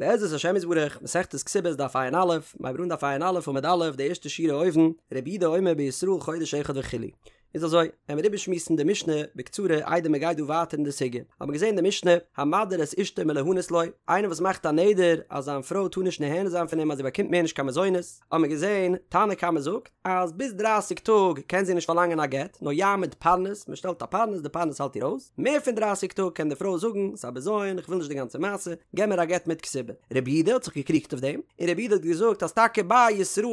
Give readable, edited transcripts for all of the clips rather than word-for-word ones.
בעזרת השם יתברך, מסכת כתובות דף ע"א, מ'הייבט אן דף ע"א עמוד א', די ערשטע שורה אויבן, רבי יהודה אומר בישראל חודש אחד וכו'. איז אזוי, עמיר איבערשמועסן די משנה בקצרה איידער מען גייט דא ווייטער אין די סוגיא. האט מען געזען די משנה, המדיר את אשתו מליהנות לו, איינער וואס מאכט א נדר אז זיין פרוי טאר נישט נהנה זיין פון אים אז זי באקומט מער נישט קיין מזונות, האט מען געזען, תנא קמא זאגט, אז ביז דרייסיג טאג קען זי נישט פארלאנגען א גט, נאר יעמיד פרנס, מען שטעלט א פרנס, די פרנס האלט איר אויס, מער פון דרייסיג טאג קען די פרוי זאגן, ס'איז א בזיון, איך וויל נישט די גאנצע מעשה, געב מיר א גט מיט כתובה. רבי יהודה האט זיך געקריגט אויף דעם, און רבי יהודה האט געזאגט אז טאקע ביי א ישראל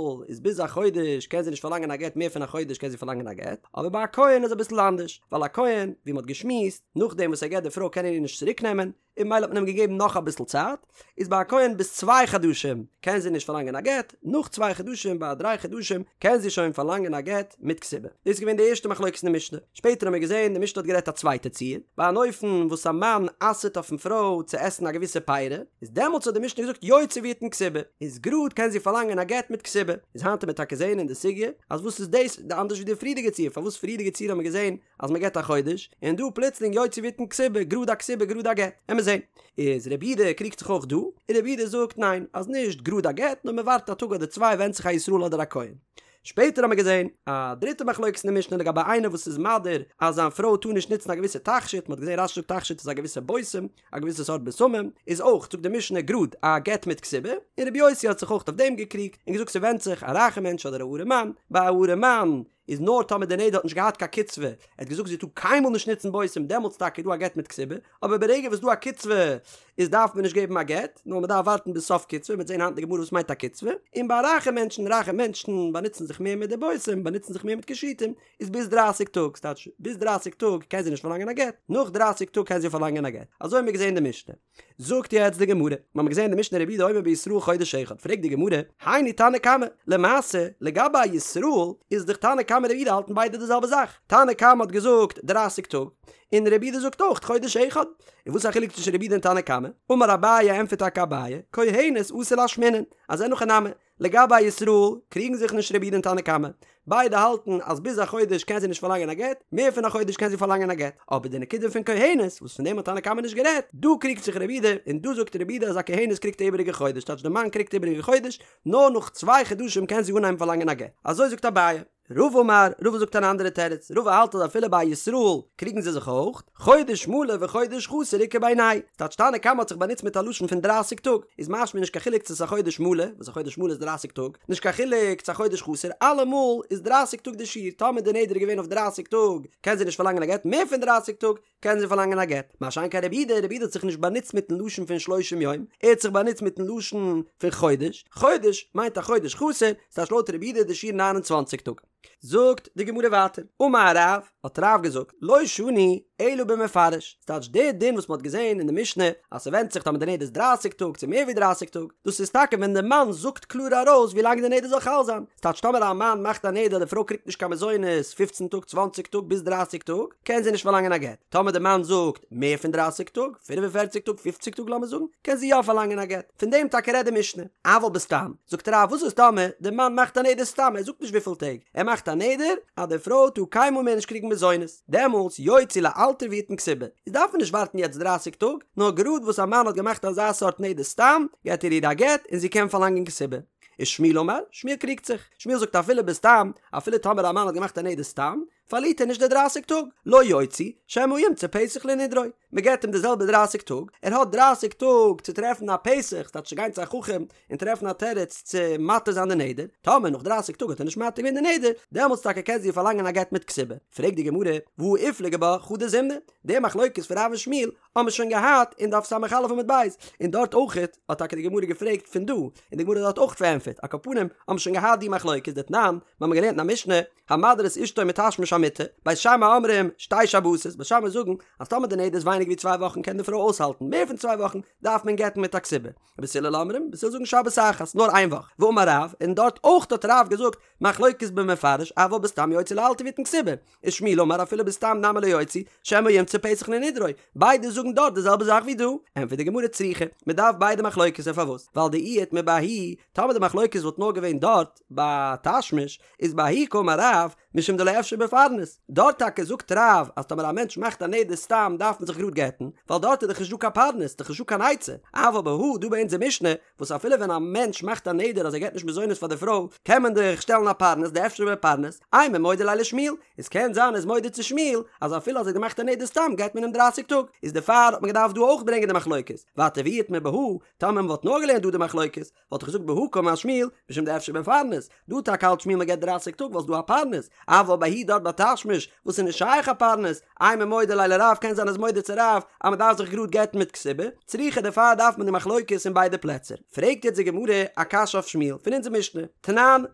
איז ביז א חודש קען זי נישט פארלאנגען א גט מער פון א חודש קען זי פארלאנגען א גט, אבער ביי א כהן איז אביסל אנדערש, ווייל א כהן, ווי מען האט געשמועסט, נאכדעם וואס ער גט די פרוי קען ער איר נישט צוריק נעמען, און ממילא האט מען אים געגעבן נאך אביסל צייט, איז ביי א כהן ביז צוויי חדשים קען זי נישט פארלאנגען א גט, נאך צוויי חדשים ביי דריי חדשים קען זי שוין פארלאנגען א גט מיט כתובה. דאס איז געווען די ערשטע מחלוקת אין די משנה. שפעטער האבן מיר געזען די משנה האט גערעדט א צווייטע ציור, ביי אן אופן וואס א מאן אסר'ט אויפן פרוי צו עסן א געוויסע פירי, איז דעמאלטס האט די משנה געזאגט יוציא ויתן כתובה, איז גראד קען זי פארלאנגען א גט מיט כתובה. איז היינט וועט מען טאקע זען אין די סוגיא אז וואס איז דאס אנדערש ווי די פריערדיגע ציור, פארוואס פריערדיגע ציור האבן מיר געזען אז מען געט א חודש, און דא פלוצלינג יוציא ויתן כתובה, גראד א כתובה גראד א גט, עמיר זען. איז רבי יהודה קריגט זיך אויך דא, און רבי יהודה זאגט ניין, אז נישט גראד א גט, נאר מען ווארט א טאג אדער צוויי ווענדט זיך א ישראל אדער א כהן. שפעטער האמיר געזען א דריטע מחלוקת אין די משנה לגבי איינער וואס איז מדיר אז זיין פרוי טאר נישט נוצן א געוויסע תכשיט, מען האט געזען רש"י זאגט תכשיט איז א געוויסע בושם, א געוויסע סארט בשמים, איז אויך זאגט די משנה גראד א גט מיט כתובה, און רבי יוסי האט זיך אויך אויף דעם געקריגט, און געזאגט ס'ווענדט זיך א רייכע מענטש אדער א ארעמאן, ביי א ארעמאן איז נאר טאמער די נדר האט נישט געהאט קיין קצבה, ער האט געזאגט זי טאר קיינמאל נישט נוצן בושם דעמאלטס טאקע איז דא א גט מיט כתובה, אבער ברגע וואס דא א קצבה איז דארף מען נישט געבן א גט, נאר מען דארף ווארטן ביז סוף קצבה, מ'וועט זען היינט אין די גמרא וואס מיינט א קצבה, און ביי רייכע מענטשן, רייכע מענטשן באנוצן זיך מער מיט די בושם, באנוצן זיך מער מיט קישוטים, איז ביז דרייסיג טאג, ס'טייטש ביז דרייסיג טאג קען זי נישט פארלאנגען א גט, נאך דרייסיג טאג קען זי פארלאנגען א גט, אזוי האבן מיר געזען אין די משנה. זאגט יעצט די גמרא, מיר האבן געזען די משנה רבי יהודה אומר בישראל חודש אחד, פרעגט די גמרא, היינו תנא קמא, למעשה לגבי א ישראל איז דאך תנא קמא רבי יהודה האלטן ביידע די זעלבע זאך, תנא קמא האט געזאגט דרייסיג טאג, און רבי יהודה זאגט אויך חודש אחד, און וואס איז א חילוק צווישן רבי יהודה און תנא קמא? אמר אביי ענטפערט טאקע אביי, כהנת אתא לאשמועינן, אז אין הכי נמי, לגבי א ישראל קריגן זיך נישט רבי יהודה און תנא קמא, ביידע האלטן אז ביז א חודש קען זי נישט פארלאנגען א גט, מער פון א חודש קען זי פארלאנגען א גט, אבער די נקודה פון כהנת, וואס פון דעם האט תנא קמא נישט גערעדט, דא קריגט זיך רבי יהודה, און דא זאגט רבי יהודה אז א כהנת קריגט א איבעריגע חודש, טייטש די מאן קריגט איבעריגע חודש, נאר נאך צוויי חדשים קען זי אנהייבן פארלאנגען א גט. אזוי זאגט אביי. רבא אמר, רבא זאגט אן אנדערע תירוץ, רבא האלט אז אפילו ביי ישראל קריגן זיי זיך אויך, חודש מלא וחודש חסר איכא בינייהו, ס'טייטש תנא קמא האט זיך באנוצט מיט א לשון פון דרייסיג טאג, איז משמע נישט קיין חילוק צו ס'איז א חודש מלא, וואס א חודש מלא איז דרייסיג טאג, נישט קיין חילוק צו א חודש חסר, אלעמאל איז דרייסיג טאג די שיעור, טאמער די נדר איז געווען אויף דרייסיג טאג קען זי נישט פארלאנגען א גט, מער פון דרייסיג טאג קען זי פארלאנגען א גט. מה שאין כן רבי יהודה, רבי יהודה האט זיך נישט באנוצט מיטן לשון פון שלושים יום, ער האט זיך באנוצט מיטן לשון פון חודש, חודש מיינט א חודש חסר, ס'טייטש לויט רבי יהודה איז די שיעור ניין און צוואנציג טאג. זאגט די גמרא ווייטער, אמר רב, האט רב געזאגט, לא שנו אלא במפרש, ס'טייטש די דין וואס מ'האט געזען אין די משנה אז ס'ווענדט זיך טאמער די נדר איז דרייסיג טאג צו מער ווי דרייסיג טאג, דאס איז טאקע ווען די מאן זאגט קלאר ארויס ווי לאנג די נדר זאל חל זיין, ס'טייטש טאמער א מאן מאכט א נדר אז די פרוי קריגט נישט קיין מזונות פופצן טאג צוואנציג טאג ביז דרייסיג טאג, קען זי נישט פארלאנגען א גט. טאמער די מאן זאגט מער פון דרייסיג טאג, פינף און פערציג טאג, פופציג טאג לאמיר זאגן, קען זי יא פארלאנגען א גט. פון דעם טאקע רעדט די משנה. אבל בסתם, זאגט רב, וואס איז טאמער די מאן מאכט א נדר סתם, ער זאגט נישט וויפיל טעג, ער מאכט א נדר אז די פרוי טאר קיינמאל מער נישט קריגן מזונות, דעמאלטס יוציא לאלתר ויתן כתובה, איז דארף מען נישט ווארטן יעצט דרייסיג טאג, נאר גראד וואס א מאן האט געמאכט אזא סארט נדר סתם, געט ער איר א גט און זי קען פארלאנגען כתובה. ושמואל אמר, שמואל קריגט זיך, שמואל זאגט אפילו בסתם, אפילו טאמער א מאן האט געמאכט א נדר סתם, פארלירט ער נישט די דרייסיג טאג, לא יוציא, שמא ימצא פתח לנדרו, מען געבט אים די זעלבע דרייסיג טאג, ער האט דרייסיג טאג צו טרעפן א פתח, ס'טייטש צו גיין צו א חכם און טרעפן א תירוץ צו מתיר זיין די נדר, טאמער נאך דרייסיג טאג האט ער נישט מתיר געווען די נדר, דעמאלטס טאקע קען זי פארלאנגען א גט מיט כתובה. פרעגט די גמרא, והא איפליגו בה חדא זימנא, די מחלוקת פון רב און שמואל האבן מיר שוין געהאט אין דף ס"א עמוד ב', און דארט אויכעט האט טאקע די גמרא געפרעגט פון דא, און די גמרא האט דארט אויך פארענטפערט, על כל פנים האבן מיר שוין געהאט די מחלוקת דתנן, מיר האבן געלערנט אין א משנה, המדיר את אשתו מתשמיש המיטה, בית שמאי אומרים שתי שבתות, בית שמאי זאגן אז טאמער די נדר איז ווייניגער ווי צוויי וואכן קען די פרוי אויסהאלטן, מער פון צוויי וואכן דארף מען גט'ן מיט א כתובה. בית הלל אומרים, בית הלל זאגן שבת אחת, נאר איין וואך. ואמר רב, און דארט אויך האט רב געזאגט, מחלוקת במפרש, אבל בסתם יוציא לאלתר ויתן כתובה. ושמואל אמר אפילו בסתם נמי לא יוציא, שמא ימצא פתח לנדרו. ביידע זאגן דארט די זעלבע זאך ווי דא. ענטפערט די גמרא צריכא, מען דארף ביידע מחלוקת'ער פארוואס? ווייל דאי איתמר בההיא, טאמער די מחלוקת וואלט נאר געווען דארט ביי תשמיש, איז בההיא קאמר רב, משום דלא אפשר בפרנס, דארט טאקע זאגט רב אז טאמער א מענטש מאכט א נדר סתם דארף מען זיך גראד גט'ן, ווייל דארט איז דאך נישט דא קיין פרנס, דאך נישט דא קיין עצה, אבל בהא דא ביי אונזער משנה, וואס אפילו ווען א מענטש מאכט א נדר אז ער געט נישט מזונות פאר די פרוי, קען מען דאך שטעלן א פרנס דאפשר בפרנס, אימא מודה ליה לשמואל, איז קען זיין ער איז מודה צו שמואל אז אפילו אז ער האט געמאכט א נדר סתם געט מען אים דרייסיג טאג, איז דערפאר האט מען געדארפט דא אויך ברענגען די מחלוקת, ווייטער ואי איתמר בהא, טאמער מען וואלט נאר געלערנט דא די מחלוקת, וואלט איך געזאגט בהא קאמר שמואל, משום דאפשר בפרנס, דא טאקע האלט שמואל מען געט דרייסיג טאג ווייל ס'דא א פרנס, אבל בההיא דארט ביי תשמיש וואס איז נישט שייך א פרנס, אימא מודה ליה לרב קען זיין ער איז מודה צו רב אז מען דארף זיך גראד גט'ן מיט כתובה, צריכא דערפאר דארף מען די מחלוקת אין ביידע פלעצער. פרעגט יעצט די גמרא א קשיא אויף שמואל פון אונזער משנה, תנן, מען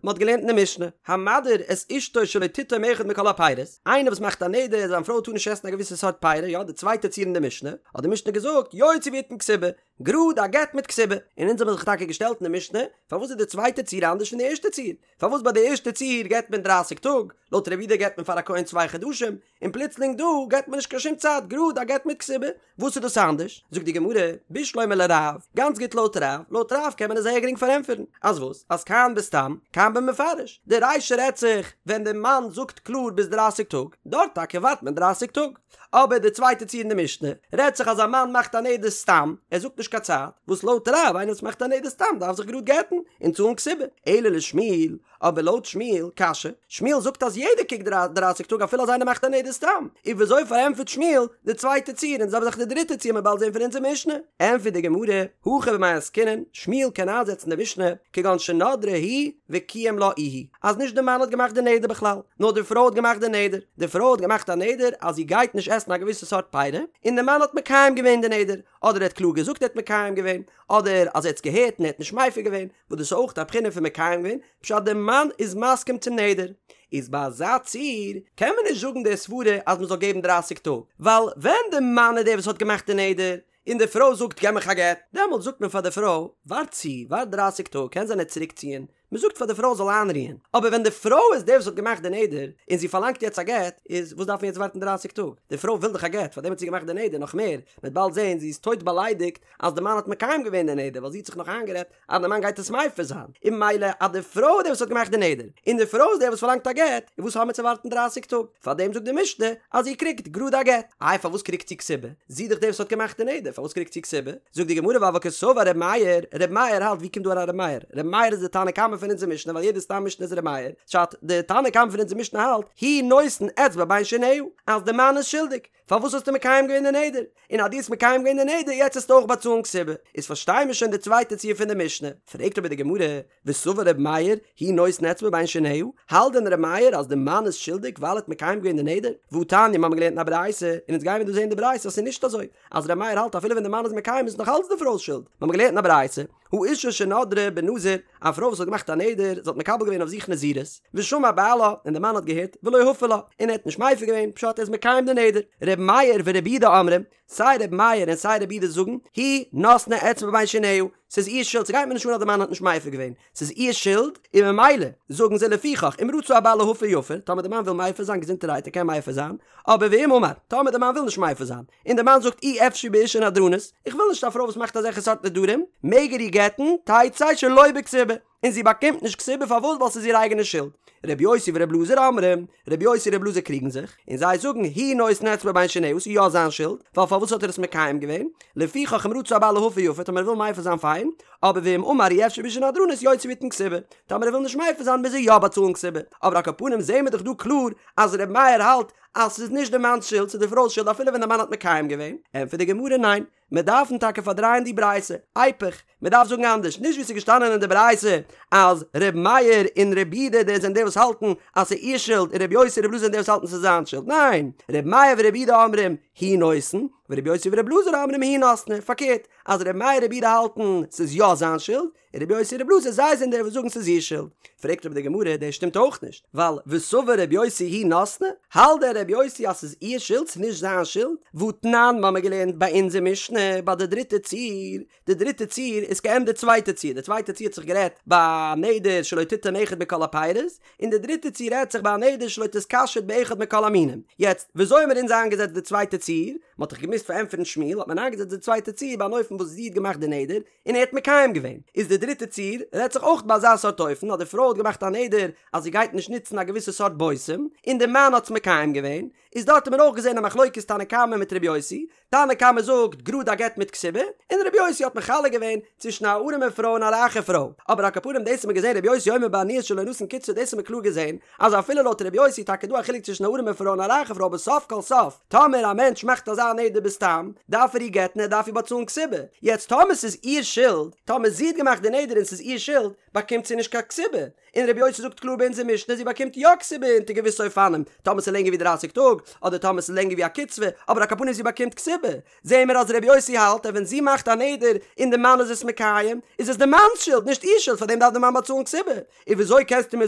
האט געלערנט אין די משנה, המדיר את אשתו שלא תטעום אחד מכל הפירות, איינער וואס מאכט א נדר אז זיין פרוי טאר נישט עסן א געוויסע סארט פירות, יא די צווייטע ציור אין די משנה, האט די משנה געזאגט יוציא ויתן כתובה, גראד א גט מיט כתובה, און אונז האבן זיך טאקע געשטעלט אין די משנה, פארוואס איז די צווייטע ציור אנדערש פון די ערשטע ציור? פארוואס ביי די ערשטע ציור געט מען דרייסיג טאג, לויט רבי יהודה געט מען פאר א כהן צוויי חדשים, און פלוצלינג דא געט מען נישט קיין שום צייט, גראד א גט מיט כתובה, וואס איז דאס אנדערש? זאגט די גמרא, בשלמא לרב, גאנץ גוט לויט רב, לויט רב קען מען עס זייער גרינג פארענטפערן, אז וואס? אז כאן בסתם, כאן במפרש, די רישא רעדט זיך ווען די מאן זאגט קלאר ביז דרייסיג טאג, דארט טאקע ווארט מען דרייסיג טאג, אבער די צווייטע ציור אין די משנה רעדט זיך אז א מאן מאכט א נדר סתם, ער זאגט נישט קיין צייט, וואס לויט רב איינער וואס מאכט א נדר סתם דארף זיך גראד גט'ן און צאלן כתובה, אלא לשמואל, אבער לויט שמואל, קשיא, שמואל זאגט אז יעדער קוקט דרייסיג טאג אפילו אז איינער מאכט א נדר סתם, איז וויאזוי פארענטפערט שמואל די צווייטע ציור און די זעלבע זאך די דריטע ציור מ'וועט באלד זען פון אונזער משנה? ענטפערט די גמרא, הכא במאי עסקינן, שמואל קען איינזעצן די משנה, כגון שנדרה היא וקיים לה איהו, אז נישט די מאן האט געמאכט די נדר בכלל, נאר די פרוי האט געמאכט די נדר, די פרוי האט געמאכט א נדר אז זי גייט נישט עסן א געוויסע סארט פירה, און די מאן האט מקיים געווען די נדר, אדער ער האט קלאר געזאגט ער האט מקיים געווען, אדער אז ער האט עס געהערט און ער האט נישט מפר געווען, וואס דאס איז אויך א בחינה פון מקיים געווען, פשט די מאן איז מסכים צום נדר. איז ביי אזא ציור קען מען נישט זאגן די סברה אז מען זאל געבן דרייסיג טאג, ווייל ווען די מאן איז דער וואס האט געמאכט די נדר, און די פרוי זאגט געב מיך א גט, דעמאלטס זאגט מען פאר די פרוי ווארט צו, ווארט דרייסיג טאג, קען זיין ער וועט צוריק ציען, מען זאגט פאר די פרוי זאל איינרוען, אבער ווען די פרוי איז דער וואס האט געמאכט די נדר, און זי פארלאנגט יעצט א גט, איז וואס דארף מען יעצט ווארטן דרייסיג טאג, די פרוי וויל דאך א גט, פארדעם האט זי געמאכט די נדר, נאך מער, מען וועט באלד זען זי איז טויט באליידיגט אז די מאן האט מקיים געווען די נדר, ווייל זי האט זיך נאך איינגערעדט אז די מאן גייט עס מפר זיין, און ממילא אז די פרוי איז דער וואס האט געמאכט די נדר, און די פרוי איז דער וואס פארלאנגט א גט, איז וואס האבן מיר צו ווארטן דרייסיג טאג? פארדעם זאגט די משנה אז זי קריגט גראד א גט. איי פארוואס קריגט זי כתובה? זי איז דאך דער וואס האט געמאכט די נדר, פארוואס קריגט זי כתובה? זאגט די גמרא ווייל קסבר ר' מאיר, ר' מאיר האלט ווי קומט דא אריין ר' מאיר? ר' מאיר איז די תנא קמא פון אונזער משנה ווייל יעדע סתם משנה איז ר' מאיר, פשט, די תנא קמא פון אונזער משנה האלט, הוא נותן אצבע בין שיניה, אז די מאן איז שולדיג, פארוואס האסטו מקיים געווען די נדר? און אז דו האסט מקיים געווען די נדר יעצט וועסטו אויך באצאלן כתובה. איז פארשטיי מיר שוין די צווייטע ציור פון די משנה. פרעגט אבער די גמרא, וסבר ר' מאיר, הוא נותן אצבע בין שיניה, האלט דען ר' מאיר אז די מאן איז שולדיג ווייל ער האט מקיים געווען די נדר? והתניא, מיר האבן געלערנט אין א ברייתא, און אונז גיימיר דא זען די ברייתא אז ס'איז נישט אזוי, אז ר' מאיר האלט אפילו ווען די מאן איז מקיים איז נאך אלץ די פרוי'ס שולד. מיר האבן געלערנט אין א ברייתא, האשה שנדרה בנזיר, א פרוי וואס האט געמאכט א נדר, זי האט מקבל געווען אויף זיך נזירות, ושמע בעלה, און דער מאן האט געהערט, ולא הפר לה, און ער האט נישט מפר געווען, פשט ער איז מקיים די נדר. ר' מאיר ור' יהודה אומרים, סיי ר' מאיר און סיי ר' יהודה זאגן, היא נתנה אצבע בין שיניה, ס'איז איר שולד, ס'גייט מיר נישט אן אז דער מאן האט נישט מפר געווען, ס'איז איר שולד, און ממילא, זאגן זיי לפיכך, אם רצה הבעל להפר יפר, טאמער דער מאן וויל מפר זיין געזונטערהייט ער קען מפר זיין, אבער ואם אמר, טאמער דער מאן וויל נישט מפר זיין, און דער מאן זאגט אי אפשי באשה נדרנית, איך וויל נישט א פרוי וואס מאכט אזעלכע סארט נדרים, מעג ער איר גט'ן, תצא שלא בכתובה, און זי באקומט נישט כתובה פארוואס ווייל ס'איז איר אייגענע שולד. ר' יוסי ור' אלעזר אומרים, ר' יוסי און ר' אלעזר קריגן זיך, און זיי זאגן הוא נותן אצבע בין שיניה ס'איז יא זיין שולד, ווייל פארוואס האט ער עס מקיים געווען, לפיכך אם רצה הבעל להפר יפר, טאמער ער וויל מפר זיין פיין, אבער ואם אמר אי אפשי באשה נדרנית יוציא ויתן כתובה, טאמער ער וויל נישט מפר זיין מוז ער יא באצאלן כתובה, אבער על כל פנים זעהן מיר דאך דא קלאר אז ר' מאיר האלט אז ס'איז נישט די מאנ'ס שולד ס'איז די פרוי'ס שולד אפילו ווען די מאן האט מקיים געווען, ענטפערט די גמרא ניין, מיר דארפן טאקע פארדרייען די ברייתא, איפוך, מען דארף זאגן אנדערש, נישט ווי ס'איז געשטאנען אין די ברייתא אז ר' מאיר און ר' יהודה די זענען די וואס האלטן אז ס'איז איר שולד און ר' יוסי און ר' אלעזר זענען די וואס האלטן ס'איז זיין שולד, ניין, ר' מאיר ור' יהודה אומרים הוא נותן, ור' יוסי ור' אלעזר אומרים היא נתנה, פארקערט, אז ר' מאיר און ר' יהודה האלטן ס'איז יא זיין שולד, און רבי יוסי און רבי אלעזר זיי זענען די וואס זאגן ס'איז איר שולד. פרעגט אבער די גמרא, דאס שטימט אויך נישט, ווייל וסבר רבי יוסי היא נתנה, האלט דען רבי יוסי אז ס'איז איר שולד ס'איז נישט זיין שולד? והתנן מ'האמיר געלערנט ביי אונזער משנה ביי די דריטע ציור, די דריטע ציור איז כעין די צווייטע ציור, די צווייטע ציור האט זיך גערעדט ביי א נדר שלא תטעום אחד מכל הפירות, און די דריטע ציור רעדט זיך ביי א נדר שלא תתקשט באחד מכל המינים. יעצט, וויאזוי האמיר אונז איינגעזעצט די צווייטע ציור? ציור, מען האט דאך געמוזט פארענטפערן שמואל, האט מען איינגעזעצט די צווייטע ציור ביי אן אופן וואס זי האט געמאכט די נדר, און ער האט מקיים געווען. איז די דריטע ציור, רעדט זיך אויך ביי אזא סארט אופן, אז די פרוי האט געמאכט א נדר אז זי גייט נישט נוצן א געוויסע סארט בושם, און די מאן האט עס מקיים געווען, איז דארט האט מען אויך געזען א מחלוקת תנא קמא מיט ר' יוסי, תנא קמא זאגט גראד א גט מיט כתובה, און ר' יוסי האט מחלק געווען צווישן א ארעמע פרוי און א רייכע פרוי, אבער על כל פנים דאס האט מען געזען ר' יוסי אומר בעניות שלא נתן קצבה דאס האט מען קלאר געזען אז אפילו לויט ר' יוסי איז טאקע דא א חילוק צווישן א ארעמע פרוי און א רייכע פרוי אבער סוף כל סוף טאמער א מענטש מאכט אזא נדר בסתם דארף ער איר גט'ן ער דארף איר באצאלן כתובה, יעצט טאמער ס'איז איר שולד, טאמער זי האט געמאכט די נדר און ס'איז איר שולד, באקומט זי נישט קיין כתובה, און רבי יוסי זאגט קלאר ביי אונזער משנה זי באקומט יא כתובה אונטער געוויסע אופנים, טאמער ס'איז לענגער ווי דרייסיג טאג, אדער טאמער ס'איז לענגער ווי א קצבה, אבער על כל פנים זי באקומט כתובה. זעהן מיר אז רבי יוסי האלט אז ווען זי מאכט א נדר און די מאן איז עס מקיים, איז עס די מאנ'ס שולד נישט איר שולד פארדעם דארף די מאן באצאלן כתובה. און וויאזוי קענסטו מיר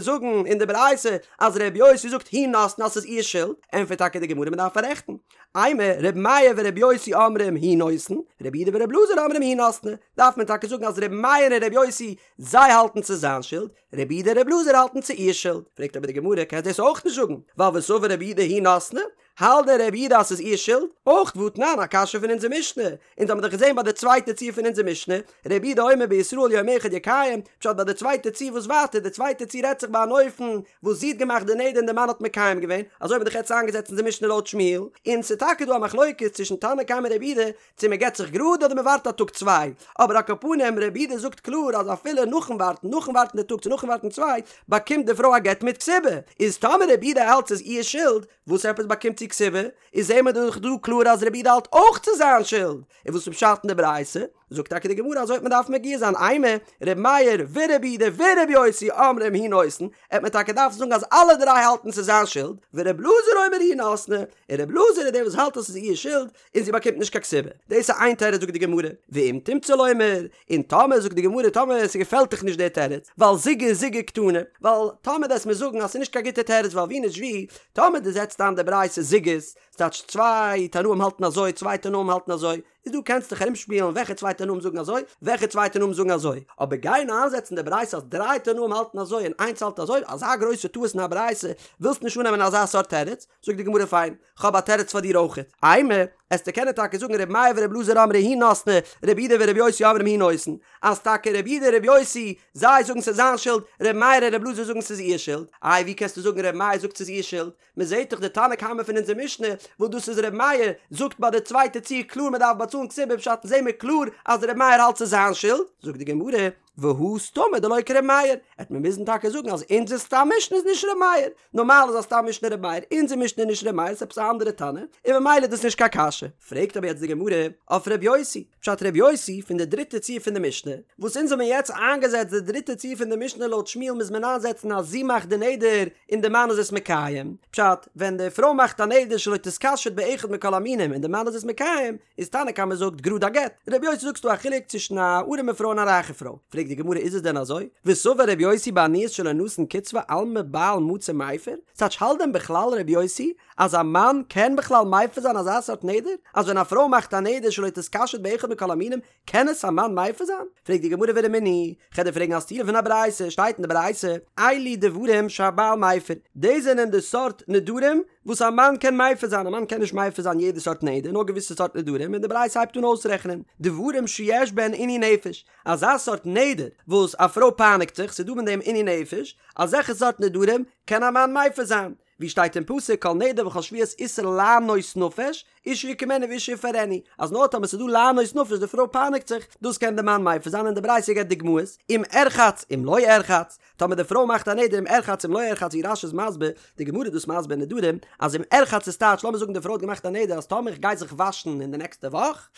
זאגן אין די ברייתא אז רבי יוסי זאגט היא נתנה אז ס'איז איר שולד? ענטפערט טאקע די גמרא מ'דארף פאררעכטן. אימא, רבי מאיר ורבי יוסי אומרים הוא נותן, רבי יהודה ורבי אלעזר אומרים היא נתנה, דארף מען טאקע זאגן אז רבי מאיר און רבי יוסי זיי האלטן ס'איז זיין שולד, רבי יהודה און רבי אלעזר האלטן ס'איז איר שולד. פרעגט אבער די גמרא, קענסט דאס אויך נישט זאגן, ווייל וסבר רבי יהודה היא נתנה, האלט דען רבי יהודה אז ס'איז איר שולד? אויך והתנן, א קשיא פון אונזער משנה, אונז האבן דאך געזען ביי די צווייטע ציור פון אונזער משנה, רבי יהודה אומר בישראל יום אחד יקיים, פשט ביי די צווייטע ציור וואס ווייטער, די צווייטע ציור רעדט זיך ביי אן אופן וואס זי האט געמאכט די נדר און די מאן האט מקיים געווען, אזוי האבן מיר דאך יעצט איינגעזעצט אונזער משנה לויט שמואל, און ס'איז טאקע דא א מחלוקת צווישן תנא קמא און רבי יהודה, צו מען גט זיך גראד אדער מען ווארט א טאג צוויי, אבער על כל פנים רבי יהודה זאגט קלאר אז אפילו נאכן ווארטן, נאכן ווארטן די טאג צו נאכן ווארטן צוויי, באקומט די פרוי א גט מיט כתובה, איז טאמער רבי יהודה האלט ס'איז איר שולד, וואס עפעס באקומט זי כתובה? איז זעהן מיר דאך דא קלאר אז רבי יהודה האלט אויך ס'איז זיין שולד, און וואס איז פשט אין די ברייתא? זאגט טאקע די גמרא אזוי וועט מען דארפן מגיה זיין אימא ר' מאיר ורבי יהודה ורבי יוסי אומרים הוא נותן, עט מען טאקע דארפן זאגן אז אלע דריי האלטן ס'איז זיין שולד, ור' אלעזר אומר היא נתנה, און ר' אלעזר איז דער וואס האלט אז ס'איז איר שולד, און זי באקומט נישט קיין כתובה. דאס איז איין תירוץ זאגט די גמרא, ואם תמצא לומר, און טאמער זאגט די גמרא טאמער ס'געפעלט דיך נישט דער תירוץ, ווייל זוגי זוגי קתני, ווייל טאמער דו וועסט מיר זאגן אז ס'איז נישט קיין גוטע תירוץ ווייל ווי נישט ווי, טאמער דו זעצט איין די ברייתא זוגות, ס'טייטש צוויי תנאים האלטן אזוי צוויי תנאים האלטן אזוי, איז דא קענסט דיך ארומשפילן וועלכע צוויי תנאים זאגן אזוי, וועלכע צוויי תנאים זאגן אזוי, אבער גיין איינזעצן די ברייתא אז דריי תנאים האלטן אזוי און איינס האלט אזוי, אזא גרויסע טעות אין א ברייתא, ווילסט נישט אננעמען אזא סארט תירוץ, זאגט די גמרא פיין, כ'האב א תירוץ פאר דיר אויכעט. אימא, עסטו קענען טאקע זאגן ר' מאיר ור' אלעזר אמרי היא נתנה, ר' יהודה ור' יוסי אומרים הוא נותן, אז טאקע ר' יהודה און ר' יוסי, זיי זאגן ס'איז זיין שולד, ר' מאיר און ר' אלעזר זאגן ס'איז איר שולד. איי ווי קענסטו זאגן ר' מאיר זאגט ס'איז איר שולד? מ'זעט דאך די תנא קמא פון אונזער משנה, וואס דאס איז ר' מאיר, זאגט ביי די צווייטע ציור קלאר מ'דארף באצאלן כתובה פשט זעהן מיר קלאר אז ר' מאיר האלט ס'איז זיין שולד, זאגט די גמרא, והא סתמא דלא כר' מאיר, עט מען מוזן טאקע זאגן אז אונזער סתם משנה איז נישט ר' מאיר, נארמאל איז א סתם משנה ר' מאיר, אונזער משנה איז נישט ר' מאיר, ס'איז עפעס א אנדערע תנא, און ממילא איז דאס נישט קיין קשיא. פרעגט אבער יעצט די גמרא אויף ר' יוסי, פשט ר' יוסי פון די דריטע ציור פון די משנה, וואס אונז האבן יעצט איינגעזעצט די דריטע ציור פון די משנה לויט שמואל מוז מען איינזעצן אז זי מאכט די נדר און די מאן איז עס מקיים, פשט, ווען די פרוי מאכט א נדר שלא תתקשט באחד מכל המינים און די מאן איז עס מקיים, איז תנא קמא זאגט גראד א גט, רבי יוסי זאגט ס'דא א חילוק צווישן א ארעמע פרוי און א רייכע פרוי, פרעגט די גמרא איז עס דען אזוי? וסבר רבי יוסי בעניות שלא נתן קצבה אלמא בעל מצי מיפר, ס'טייטש האלט דען בכלל רבי יוסי אז א מאן קען בכלל מפר זיין אזא סארט נדר? אז ווען א פרוי מאכט א נדר שלא תתקשט באחד מכל המינים קען עס א מאן מפר זיין? פרעגט די גמרא ורמינהי, כ'על דיר פרעגן א סתירה פון א ברייתא, שטייט אין די ברייתא, אלו דברים שהבעל מפר, דאס זענען די סארט נדרים וואס א מאן קען מפר זיין, א מאן קען נישט מפר זיין יעדע סארט נדר, נאר געוויסע סארט נדרים, און די ברייתא הייבט אן אויסרעכענען, דברים שיש בהן עינוי נפש, אזא סארט נדר וואס א פרוי פייניגט זיך, ס'איז דא אין דעם עינוי נפש, אזעלכע סארט נדרים קען א מאן מפר זיין, ווי שטייט אין פסוק כל נדר וכל שבועת איסור לענות נפש, אישה יקימנו ואישה יפרנו, אז נאר טאמער ס'איז דא לענות נפש די פרוי פייניגט זיך, דאס קען די מאן מפר זיין און די ברייתא געבט דוגמאות, אם ארחץ אם לא ארחץ, טאמער די פרוי מאכט א נדר אם ארחץ אם לא ארחץ ווי רש"י איז מסביר, די גמרא איז דאס מסביר אין נדרים, אז אם ארחץ איז טייטש לאמיר זאגן די פרוי האט געמאכט א נדר אז טאמער איך גיי זיך וואשן אין די נעקסטע וואך,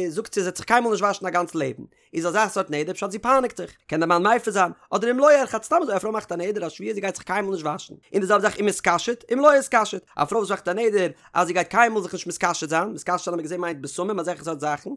זאגט זי זי וועט זיך קיינמאל נישט וואשן א גאנץ לעבן, איז אזא סארט נדר פשט זי פייניגט זיך, קען דער מאן מפר זיין, אדער אם לא ארחץ סתם אזוי א פרוי מאכט א נדר א שבועה זי גייט זיך קיינמאל נישט וואשן, און די זעלבע זאך אם אתקשט אם לא אתקשט, א פרוי וואס מאכט א נדר אז זי גייט קיינמאל זיך נישט מתקשט זיין, מתקשט זיין האט מען געזען מיינט בשמים אזעלכע סארט זאכן,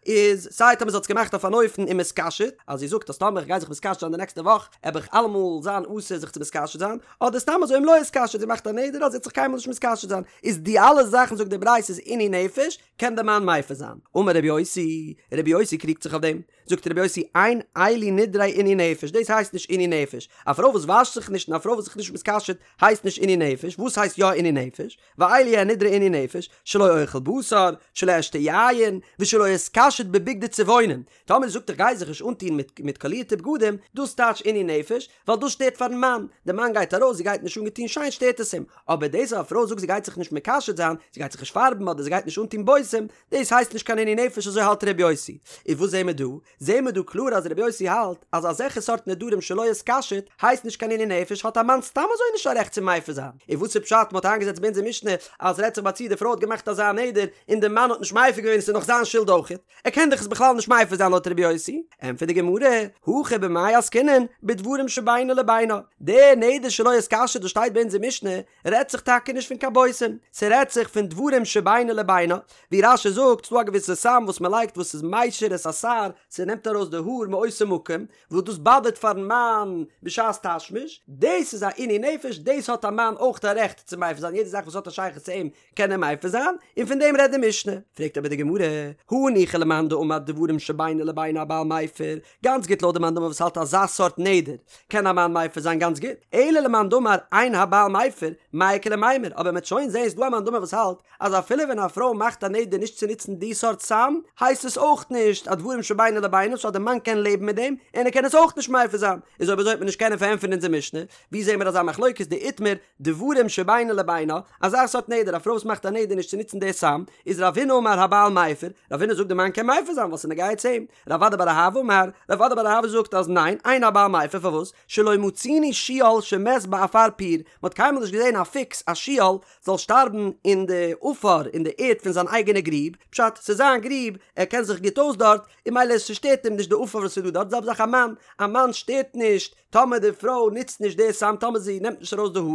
איז סיי טאמער זי האט עס געמאכט אויף אן אופן אם אתקשט, אז זי זאגט אז טאמער איך גיי זיך מתקשט זיין די נעקסטע וואך עב איך אלעמאל זיין אסור זיך צו מתקשט זיין, אדער סתם אזוי אם לא אתקשט זי מאכט א נדר אז זי וועט זיך קיינמאל נישט מתקשט זיין, איז די אלע זאכן זאגט די ברייתא איז עינוי נפש, קען דער מאן מפר זיין. אמר רבי יוסי, רבי יוסי קריגט זיך אויף דעם, זאגט רבי יוסי אין אלו נדרי עינוי נפש, דאס הייסט נישט עינוי נפש, א פרוי וואס וואשט זיך נישט און א פרוי וואס זיך נישט מתקשט הייסט נישט עינוי נפש. נפש, וואס הייסט יא עינוי נפש? ואלו הן נדרי עינוי נפש, שלא אוכל בשר, שלא אשתה יין, ושלא אתקשט בבגדי צבעונין. טאמער זי זאגט איך גיי זיך נישט אנטון מיט מיט קאלירטע בגדים, דאס טייטש עינוי נפש, ווייל דאס שטערט פארן מאן, די מאן גייט ארויס זי גייט נישט אנגעטון שיין שטערט עס אים, אבער דאס אז א פרוי זאגט זי גייט זיך נישט מקשט זיין, זי גייט זיך נישט פארבן אדער זי גייט נישט אנטון בושם, דאס הייסט נישט קיין עינוי נפש אזוי האלט ר' יוסי. איז וואס זעהן מיר דא? זעהן מיר דא קלאר אז ר' יוסי האלט אז אזעלכע סארט נדרים שלא אתקשט הייסט נישט קיין עינוי נפש האט א מאן סתם אזוי נישט א רעכט צו מפר זיין. און וואס איז פשט מ'האט איינגעזעצט ביי אונזער משנה אז רעדט זיך ביי א ציור די פרוי האט געמאכט אזא נדר און די מאן האט נישט מפר געווען עס איז נאך זיין שולד אויכעט ער קען דאך עס בכלל נישט מפר זיין לויט ר' יוסי? ענטפערט די גמרא, הכא במאי עסקינן בדברים שבינו לבינה, די נדר שלא אתקשט וואס שטייט ביי אונזער משנה רעדט זיך טאקע נישט פון קיין בושם, ס'רעדט זיך פון דברים שבינו לבינה, ווי רש"י זאגט, ס'דא א געוויסע סם וואס מ'לייגט וואס איז משיר את השער, ס'נעמט ארויס די האר מאותו מקום, וואס דאס באדערט פארן מאן בשעת תשמיש, דאס איז א עינוי נפש, דאס האט א מאן אויך א רעכט צו מפר זיין, יעדע זאך וואס האט א שייכות צו אים קען ער מפר זיין, און פון דעם רעדט די משנה. פרעגט אבער די גמרא, הניחא למאן דאמר דברים שבינו לבינה הבעל מפר, גאנץ גוט לויט די מאן דאמר וואס האלט אזא סארט נדר קען א מאן מפר זיין גאנץ גוט, אלא למאן דאמר אין הבעל מפר, מאי איכא למימר, אבער מ'עט שוין זעהן ס'דא א מאן דאמר וואס האלט אז אפילו ווען א פרוי מאכט א נדר נישט צו נוצן די סארט סם הייסט עס אויך נישט א דברים שבינו לבינה סאו אז די מאן קען לעבן מיט דעם און ער קען עס אויך נישט מפר זיין, איז אויב אזוי וועט מען נישט קענען פארענטפערן אונזער משנה, ווי זעהן מיר אזא מחלוקת דאיתמר דברים שבינו לבינה, אזא סארט נדר, א פרוי וואס מאכט א נדר נישט צו נוצן די סם, איז רב הונא אמר הבעל מפר, רב הונא זאגט די מאן קען מפר זיין ווייל ס'איז נוגע צו אים, רב אדא בר אהבה אמר, רב אדא בר אהבה זאגט אז ניין, אין הבעל מפר פארוואס, שלא מצינו שועל שמת בעפר פיר, מ'האט קיינמאל נישט געזען א פוקס א שועל זאל שטארבן אין די עפר אין די ערד פון זיין אייגענע גריב, פשט, ס'איז זיין גריב, ער קען זיך גוט אויס דארט, און ממילא ס'שטערט אים נישט די עפר וואס איז דא דארט, זעלבע זאך א מאן, א מאן שטערט נישט טאמער די פרוי נוצט נישט די סם טאמער זי נעמט נישט ארויס די האר,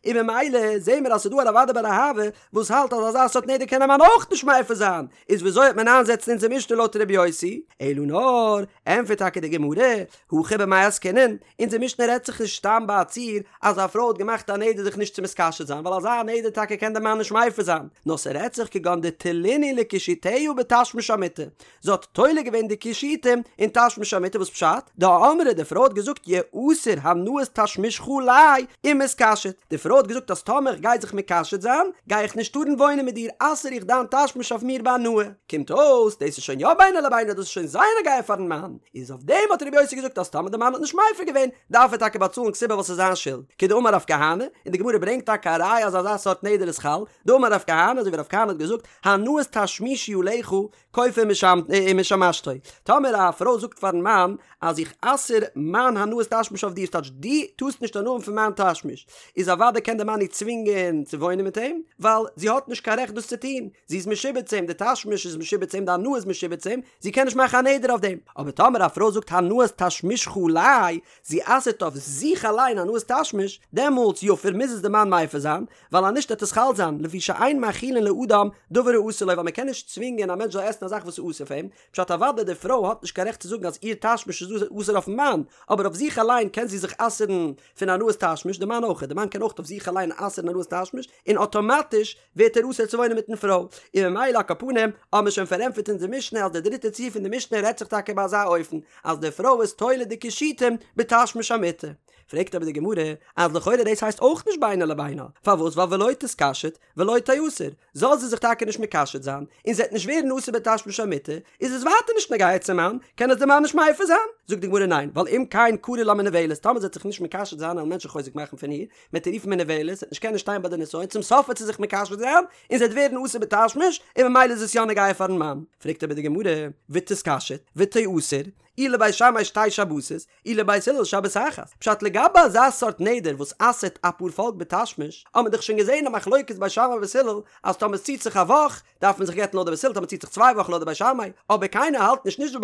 און ממילא זעהן מיר אז ס'איז דא א רב אדא בר אהבה וואס האלט אז אזא סארט נדר קען א מאן אויך נישט מפר זיין, איז וויאזוי וועט מען איינזעצן אונזער משנה לויט ר' יוסי? אלא נאר, ענטפערט טאקע די גמרא, הכא במאי עסקינן, אונזער משנה רעדט זיך נישט סתם ביי א ציור אז א פרוי האט געמאכט א נדר זיך נישט צו מתקשט זיין ווייל אזא נדר טאקע קען די מאן נישט מפר זיין, נאר ס'רעדט זיך כגון דתלינהו לקישוטיה בתשמיש המיטה, זי האט תולה געווען די קישוטים אין תשמיש המיטה וואס פשט? דאמרה די פרוי האט געזאגט יאסר הנאת תשמישך עלי אם אתקשט, די פרוי האט געזאגט אז טאמער איך גיי זיך מקשט זיין גיי איך נישט טארן וואוינען מיט דיר אסר איך דיין תשמיש אויף מיר בהנאה, קומט אויס דאס איז שוין יא בינו לבינה דאס איז שוין זייער נוגע פארן מאן, איז אויף דעם האט רבי יוסי געזאגט אז טאמער די מאן האט נישט מפר געווען דארף ער טאקע באצאלן כתובה ווייל ס'איז זיין שולד, כדאמר רב כהנא, און די גמרא ברענגט טאקע א ראיה אז אזא סארט נדר איז חל, דאמר רב כהנא אזוי ווי רב כהנא האט געזאגט הנאת תשמישי עליך כופה ומשמשתו, טאמער א פרוי זאגט פארן מאן אז איך אסר מיין הנאת תשמיש אויף דיר ס'טייטש דו טארסט נישט הנאה האבן פון מיין תשמיש, איז אוודאי קען דער מאן איר צווינגען צו וואוינען מיט אים, ווייל זי האט נישט קיין רעכט דאס צו טון, זי איז משועבד צו אים, די תשמיש איז משועבד צו אים, די הנאה איז משועבד צו אים, זי קען נישט מאכן א נדר אויף דעם. אבער טאמער א פרוי זאגט הנאת תשמישך עלי, זי אסר'ט אויף זיך אליין הנאת תשמיש, דעמאלטס יפר מוז עס די מאן מפר זיין, ווייל אז נישט וועט עס חל זיין, לפי שאין מאכילין לאדם דבר האסור לו ווייל מען קען נישט צווינגען א מענטש זאל עסן א זאך וואס איז אסור פאר אים, פשט אוודאי די פרוי האט נישט קיין רעכט צו זאגן אז איר תשמיש איז אסור אויפן מאן, אבער אויף זיך אליין קען זי זיך אסר'ן פון הנאת תשמיש, די מאן אויך, די מאן קען אויך אויף זיך אליין אסר'ן הנאת תשמיש, און אטאמאטיש ווערט ער אסור צו וואוינען מיטן פרוי, און ממילא על כל פנים האבן מיר שוין פארענטפערט אונזער משנה אז די דריטע ציור פון די משנה רעדט זיך טאקע ביי אזא אופן אז די פרוי איז תולה די קישוטים בתשמיש המיטה. פרעגט אבער די גמרא אז לכאורה דאס הייסט אויך נישט בינו לבינה, פארוואס ווייל ולא תתקשט ולא תיאסר, זאל זי זיך טאקע נישט מקשט זיין, און זי וועט נישט ווערן אסור בתשמיש המיטה, איז עס ווייטער נישט נוגע צום מאן, קען עס דער מאן נישט מפר זיין? זאגט די גמרא ניין, ווייל אם כן קרי לה מנוולת, טאמער זי וועט זיך נישט מקשט זיין וועלן מענטשן חוזק מאכן פון איר, מ'וועט איר רופן מנוולת, זי וועט נישט קענען שטיין ביי די נסיון, צום סוף וועט זי זיך מקשט זיין, און זי וועט ווערן אסור בתשמיש, און ממילא איז עס יא נוגע פארן מאן. פרעגט אבער די גמרא, ותתקשט, ותיאסר, אי לבית שמאי שתי שבתות, אי לבית הלל שבת אחת. פשט לגבי אזא סארט נדר וואס אסר'ט א פארפאלק בתשמיש, האט מען דאך שוין געזען א מחלוקת בית שמאי ובית הלל, אז טאמער עס ציט זיך א וואך, דארף מען זיך גט'ן לויט די בית הלל, טאמער ציט זיך צוויי וואכן לויט די בית שמאי, אבער קיינער האלט נישט, נישט די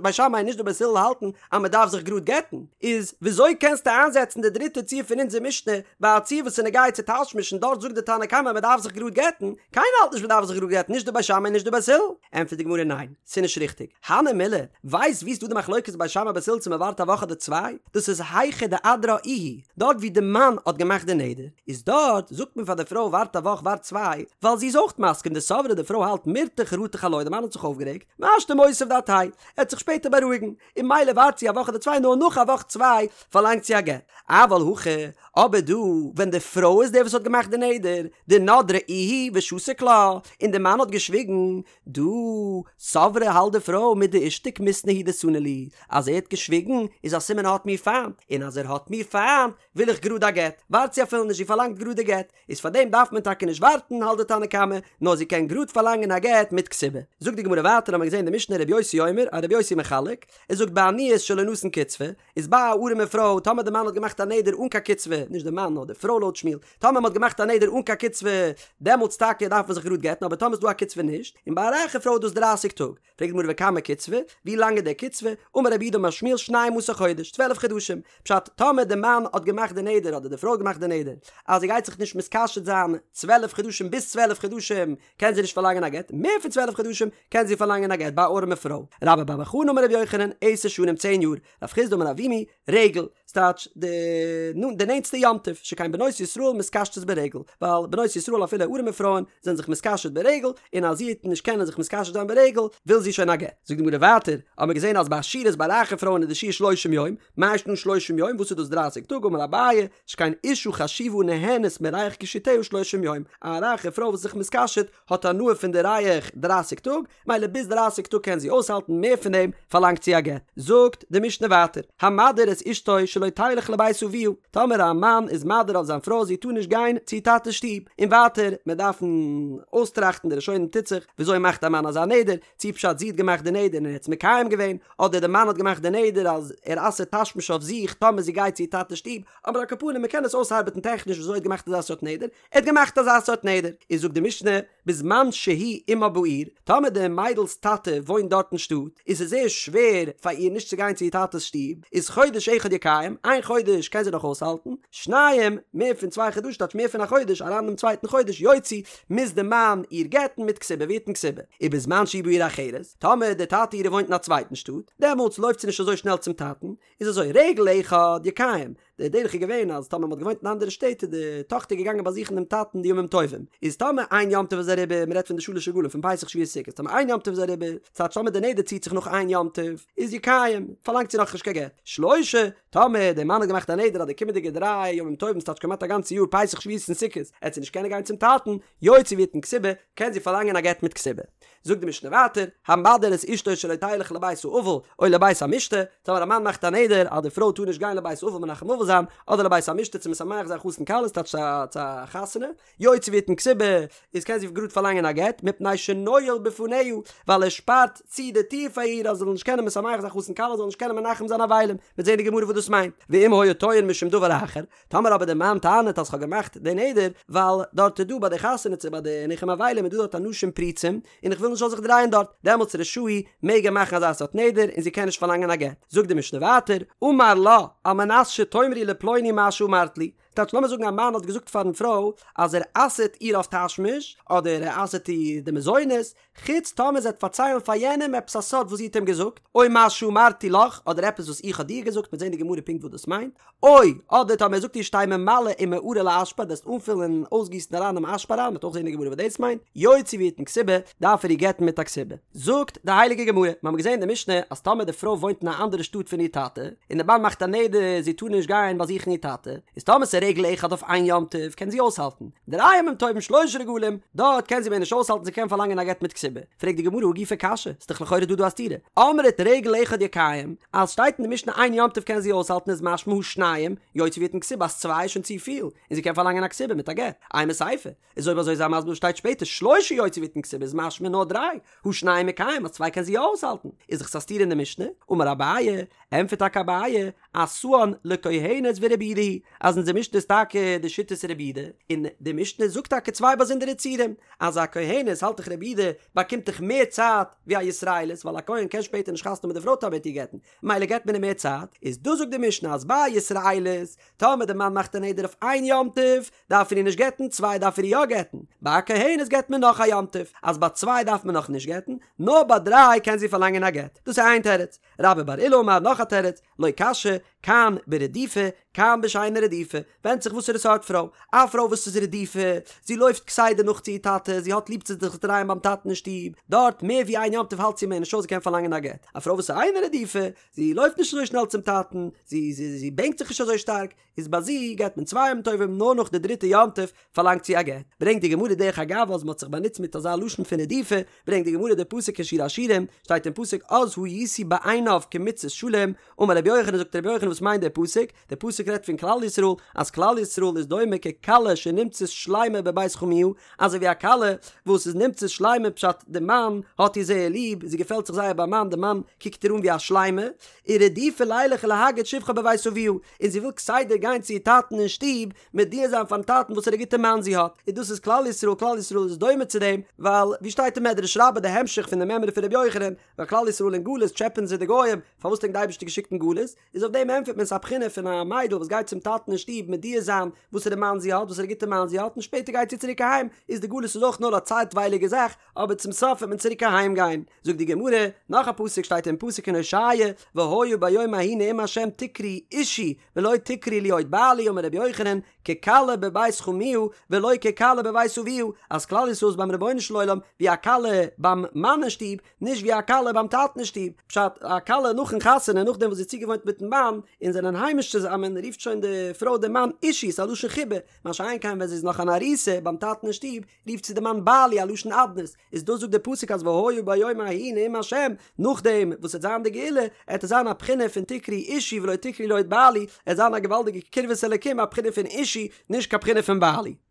בית שמאי און נישט די בית הלל האלטן אז מען דארף זיך גראד גט'ן, איז וויאזוי קענסטו איינזעצן די דריטע ציור פון אונזער משנה ביי א ציור וואס איז נוגע צו תשמיש און דארט זאגט די תנא קמא מען דארף זיך גראד גט'ן, קיינער האלט נישט מען דארף זיך גראד גט'ן נישט די בית שמאי און נישט די בית הלל, ענטפערט די גמרא ניין, ס'איז נישט ריכטיג, הני מילי, ווייסט וואו ס'איז דא די. די מחלוקת בית שמאי בית הלל צו מען ווארט א וואך אדער צוויי? דאס איז היכא דאדרה איהו, דארט ווי די מאן האט געמאכט די נדר, איז דארט זאגט מען פאר די פרוי ווארט א וואך ווארט צוויי, ווייל זי איז אויך מסכים דסברא די פרוי האלט מירתח רתח עילואי די מאן האט זיך אויפגערעגט, והשתא מותיב דעתיה, ער וועט זיך שפעטער בארואיגן, און ממילא ווארט זי א וואך אדער צוויי נאר נאך א וואך צוויי פארלאנגט זי א גט. אבל הכא, אבער דא ווען די פרוי איז די וואס האט געמאכט די נדר, דנדרה איהי ושתיק לה, און די מאן האט געשוויגן, דא סברא האלט די פרוי מדאישתיק מיתנא הוא דסני לי, אז ער האט געשוויגן איז א סימן ער האט מיר פיינט, און אז ער האט מיר פיינט וויל איך גראד א גט, ווארט זי אפילו נישט זי פארלאנגט גראד די גט, איז פאר דעם דארף מען טאקע נישט ווארטן האלט די תנא קמא, נאר זי קען גראד פארלאנגען א גט מיט כתובה. זאגט די גמרא ווייטער האמיר געזען די משנה רבי יוסי אומר אז רבי יוסי מחלק, ער זאגט בעניות שלא נתן קצבה, איז ביי א ארעמע פרוי טאמער די מאן האט געמאכט א נדר אן קיין קצבה, נישט די מאן נאר די פרוי לויט שמואל, טאמער מען האט געמאכט א נדר אן קיין קצבה דעמאלטס טאקע דארף מען זיך גראד גט'ן אבער טאמער איז דא א קצבה נישט, און ביי א רייכע פרוי איז דאס דרייסיג טאג. פרעגט די גמרא וכמה קצבה, ווי לאנג איז די קצבה? אמר רב יהודה אמר שמואל שנים עשר חודש, צוועלף חדשים, פשט, טאמער די מאן האט געמאכט די נדר אדער די פרוי האט געמאכט די נדר אז זי גייט זיך נישט מתקשט זיין צוועלף חדשים ביז צוועלף חדשים קען זי נישט פארלאנגען א גט, מער פון צוועלף חדשים קען זי פארלאנגען א גט ביי א ארעמע פרוי. רבה בר בר חנה אמר רבי יוחנן, עשר שנים צען יאר, רב חסדא אמר אבימי, רגל, ס'טייטש די די נענטסטע יום טוב, שכן בנות ישראל מתקשטות ברגל, ווייל בנות ישראל אפילו ארעמע פרויען זענען זיך מתקשט ברגל, און אז זי וועט נישט קענען זיך מתקשט זיין ברגל, וויל זי שוין א גט. זאגט די גמרא ווייטער, האבן מיר געזען אז ביי עשירות ביי רייכע פרויען איז די שיעור שלושים יום, מאי שנא שלושים יום, וואס איז דאס דרייסיג טאג, אמר אביי, שכן אשה חשובה נהנית מריח קישוטיה שלושים יום, א רייכע פרוי וואס איז זיך מתקשט האט הנאה פון די ריח דרייסיג טאג, מילא ביז דרייסיג טאג קען זי אויסהאלטן, מער פון דעם פארלאנגט זי א גט. זאגט די משנה ווייטער, המדיר את אשתו שלא תלך לבית אביה, טאמער א מאן איז מדיר אויף זיין פרוי זי טאר נישט גיין צו איר טאטע'ס שטוב, און ווייטער, מיר דארפן אויסטראכטן די ראשונים טוט זיך, וויאזוי מאכט א מאן אזא נדר, צי פשט זי האט געמאכט די נדר און ער האט עס מקיים געווען, אדער די מאן האט געמאכט די נדר אז ער אסר'ט תשמיש אויף זיך טאמער זי גייט צו איר טאטע'ס שטוב, אבער על כל פנים מען קען עס אויסארבעטן טעכניש וויאזוי ער האט געמאכט אזא סארט נדר, ער האט געמאכט אזא סארט נדר, איז זאגט די משנה, בזמן שהוא עמה בעיר, טאמער די מיידל'ס טאטע וואוינט דארט אין שטאט, איז עס זייער שווער פאר איר נישט צו גיין צו איר טאטע'ס שטוב, איז חודש אחד יקיים, איין חודש קען זי נאך אויסהאלטן, שניים, מער פון צוויי חדשים טייטש מער פון א חודש, אריין אינעם צווייטן חודש, יוציא, מוז די מאן איר גט'ן מיט כתובה ויתן כתובה. ובזמן שהוא בעיר אחרת, טאמער די טאטע אירע וואוינט אין א צווייטן שטאט, דעמאלטס לויפט זי נישט אזוי שנעל צום טאטן, איז אזוי, רגל אחד יקיים, די דרך איז געווען אז טאמער מ'האט געוואוינט אין אנדערע שטעט איז די טאכטער געגאנגען באזוכן דעם טאטן די ימים טובים, איז טאמער איין יום טוב איז אריבער, מ'רעדט פון די שלש רגלים פון פסח שבועות סוכות, טאמער איין יום טוב איז אריבער, ס'טייטש טאמער די נדר ציט זיך נאך איין יום טוב, איז יקיים, פארלאנגט זי נאכנישט קיין גט. שלשה, טאמער דער מאן האט געמאכט א נדר אז די קומענדיגע דריי ימים טובים ס'טייטש כמעט א גאנצע יאר פסח שבועות און סוכות, עט זי נישט קענען גיין צום טאטן, יוציא ויתן כתובה, קען זי פארלאנגען א גט מיט כתובה. זאגט די משנה ווייטער, המדיר את אשתו שלא תלך לבית האבל או לבית המשתה, טאמער א מאן מאכט א נדר אז די פרוי טאר נישט גיין לבית האבל מנחם אבל זיין, אדער לבית המשתה צו משמח זיין חתן כלה ס'טייטש צו א חתונה, יוציא ויתן כתובה, איז קען זי גראד פארלאנגען א גט, מפני שנועל בפניה, ווייל ער שפארט צו די טיר פאר איר אז זי זאל נישט קענען משמח זיין חתן כלה זאל נישט קענען מנחם זיין אבלים, מ'וועט זען אין די גמרא וואס דאס מיינט, ואם היה טוען משום דבר אחר, טאמער אבער דער מאן טענה'ט אז כ'האב געמאכט די נדר ווייל דארט איז דא ביי די חתונה צו ביי די ניחום אבלים איז דא דארט אנשים פרוצים און איך וויל נישט זאל זיך דרייען דארט, דעמאלטס רשאי מעג ער מאכן אזא סארט נדר און זי קען נישט פארלאנגען א גט. זאגט די משנה ווייטער, אמר לה, על מנת שתאמרי לפלוני מה שאמרת לי, טייטש לאמיר זאגן א מאן האט געזאגט פארן פרוי אז ער אסר'ט איר אויף תשמיש אדער ער אסר'ט איר די מזונות, חוץ טאמער זי וועט פארציילן פאר יענעם עפעס א סוד וואס זי האט אים געזאגט, או מה שאמרתי לך, אדער עפעס וואס איך האב דיר געזאגט, מ'וועט זען אין די גמרא פונקט וואס דאס מיינט, או, אדער טאמער ער זאגט איר שתהא ממלא ומערה לאשפה, דו וועסט אנפילן און אויסגיסן אריין דעם אשפה אריין, מ'וועט אויך זען אין די גמרא וואס דאס מיינט, יוציא ויתן כתובה, דארף ער איר גט'ן מיט א כתובה. זאגט די הייליגע גמרא, מיר האבן געזען אין די משנה אז טאמער די פרוי וואוינט אין א אנדערע שטאט פון איר טאטע, און די מאן מאכט א נדר זי טאר נישט גיין באזוכן איר טאטע, איז טאמער ס'איז רגל אחד אויף איין יום טוב קען זי אויסהאלטן, דריי ימים טובים שלשה רגלים, דארט קען זי מער נישט אויסהאלטן זי קען פארלאנגען א גט מיט כתובה. פרעגט די גמרא הא גופא קשיא, ס'איז דאך לכאורה דא דא א סתירה. אמרת רגל אחד יקיים, אז שטייט אין די משנה איין יום טוב קען זי אויסהאלטן איז משמע הא שניים, יוציא ויתן כתובה אז צוויי איז שוין צופיל, און זי קען פארלאנגען א כתובה מיט א גט. אימא סיפא, איז אויב אזוי זיי מסביר וואס שטייט שפעטער שלשה יוציא ויתן כתובה איז משמע נאר דריי, הא שניים מקיים אז צוויי קען זי יא אויסהאלטן, איז דאך עס א סתירה אין די משנה, אמר אביי, ענטפערט טאקע אביי, עשאן לכהנת ורבי יהודה היא, אז אונזער משנה. משנה איז טאקע די שיטת רבי יהודה, און די משנה זאגט טאקע צוויי באזונדערע ציורים, אז א כהנת האלט דאך רבי יהודה באקומט דאך מער צייט ווי א ישראלית ווייל א כהן קען שפעטער נישט חתונה מיט די פרוי טאמער ער וועט איר גט'ן, מילא געט מען אים מער צייט, איז דא זאגט די משנה אז ביי א ישראלית טאמער די מאן מאכט א נדר אויף איין יום טוב דארף ער איר נישט גט'ן, צוויי דארף ער איר יא גט'ן, ביי א כהנת געט מען נאך א יום טוב, אז ביי צוויי דארף מען נאך נישט גט'ן, נאר ביי דריי קען זי פארלאנגען א גט, דאס איז איין תירוץ. רבה בר עולא אמר נאך א תירוץ, לא קשיא, כאן ברדופה, כאן בשאינה רדופה, ווענדט זיך וואסערע סארט פרוי, א פרוי וואס איז רדופה, זי לויפט כסדר נאך צו איר טאטע, זי האט ליב צו זיך דרייען ביים טאטן אין שטוב, דארט מער ווי איין יום טוב האלט זי מער נישט אויס זי קען פארלאנגען א גט, א פרוי וואס איז אינה רדופה, זי לויפט נישט אזוי שנעל צום טאטן, זי זי זי בענקט זיך נישט אזוי שטארק, איז ביי זי געט מען צוויי יום טובים נאר נאך די דריטע יום טוב פארלאנגט זי א גט. ברענגט די גמרא דרך אגב אז מען האט זיך באנוצט מיט אזא לשון פון רדופה, ברענגט די גמרא די פסוק אין שיר השירים, שטייט אין פסוק אז הייתי בעיניו כמצות שלום, אמר רבי יוחנן זאגט רבי יוחנן וואס מיינט דער פסוק? דער פסוק רעדט פון כלל ישראל, אז כלל ישראל איז דומה ככלה שנמצאת שלימה בבית חמיה, אזוי ווי א כלה וואס איז נמצאת שלימה פשט די מאן האט איר זייער ליב, זי געפעלט זיך זייער ביים מאן, די מאן קוקט איר אן ווי א שלימה, ורדופה לילך ולהגיד שבחה בבית אביה, און זי וויל כסדר גיין צו איר טאטן אין שטוב מודיע זיין פארן טאטן וואסערע גוטע מאן זי האט, און דאס איז כלל ישראל, כלל ישראל איז דומה צו דעם, ווייל ווי שטייט אין מדרש רבה די המשך פון די מימרא פון רבי יוחנן, ווייל כלל ישראל אין גלות טשעפען זיי די גוים, פארוואס האט ענק די אייבערשטער געשיקט אין גלות, איז אויף דעם ענטפערט מען ס'איז א בחינה פון א מיידל וואס גייט צום טאטן אין שטוב מודיע זיין וואסערע מאן זי האט, וואסערע גוטע מאן זי האט, און שפעטער גייט זי צוריק אהיים, איז די גלות איז אויך נאר א צייטווייליגע זאך, אבער צום סוף וועט מען צוריק אהיים גיין. זאגט די גמרא, נאך א פסוק שטייט אין פסוק אין הושע, והיה ביום ההוא נאום ה' תקראו אישי ולא תקראו לי עוד בעלי אמר רבי יוחנן, ככלה בבית חמיה ולא ככלה בבית אביה, אז כלל ישראל איז ביים רבונו של עולם ווי א כלה ביים מאן אין שטוב, נישט ווי א כלה ביים טאטן אין שטוב, פשט, א כלה נאכן חתונה נאכדעם וואס זי איז צוגעוואוינט מיטן מאן און זענען היימיש צוזאמען רופט שוין די פרוי דעם מאן אישי, ס'איז א לשון חיבה, מה שאין כן ווען זי איז נאך אן ארוסה ביים טאטן אין שטוב רופט זי די מאן בעלי א לשון אדנות, איז דאס זאגט דער פסוק אז והיה ביום ההוא נאום השם, נאכדעם וואס עט זיין די גאולה, עט עס זיין א בחינה פון תקראו אישי ולא תקראו לי עוד בעלי, עט זיין א געוואלדיגע קרבת אלקים א בחינה פון אישי, נישט קיין בחינה פון בעלי.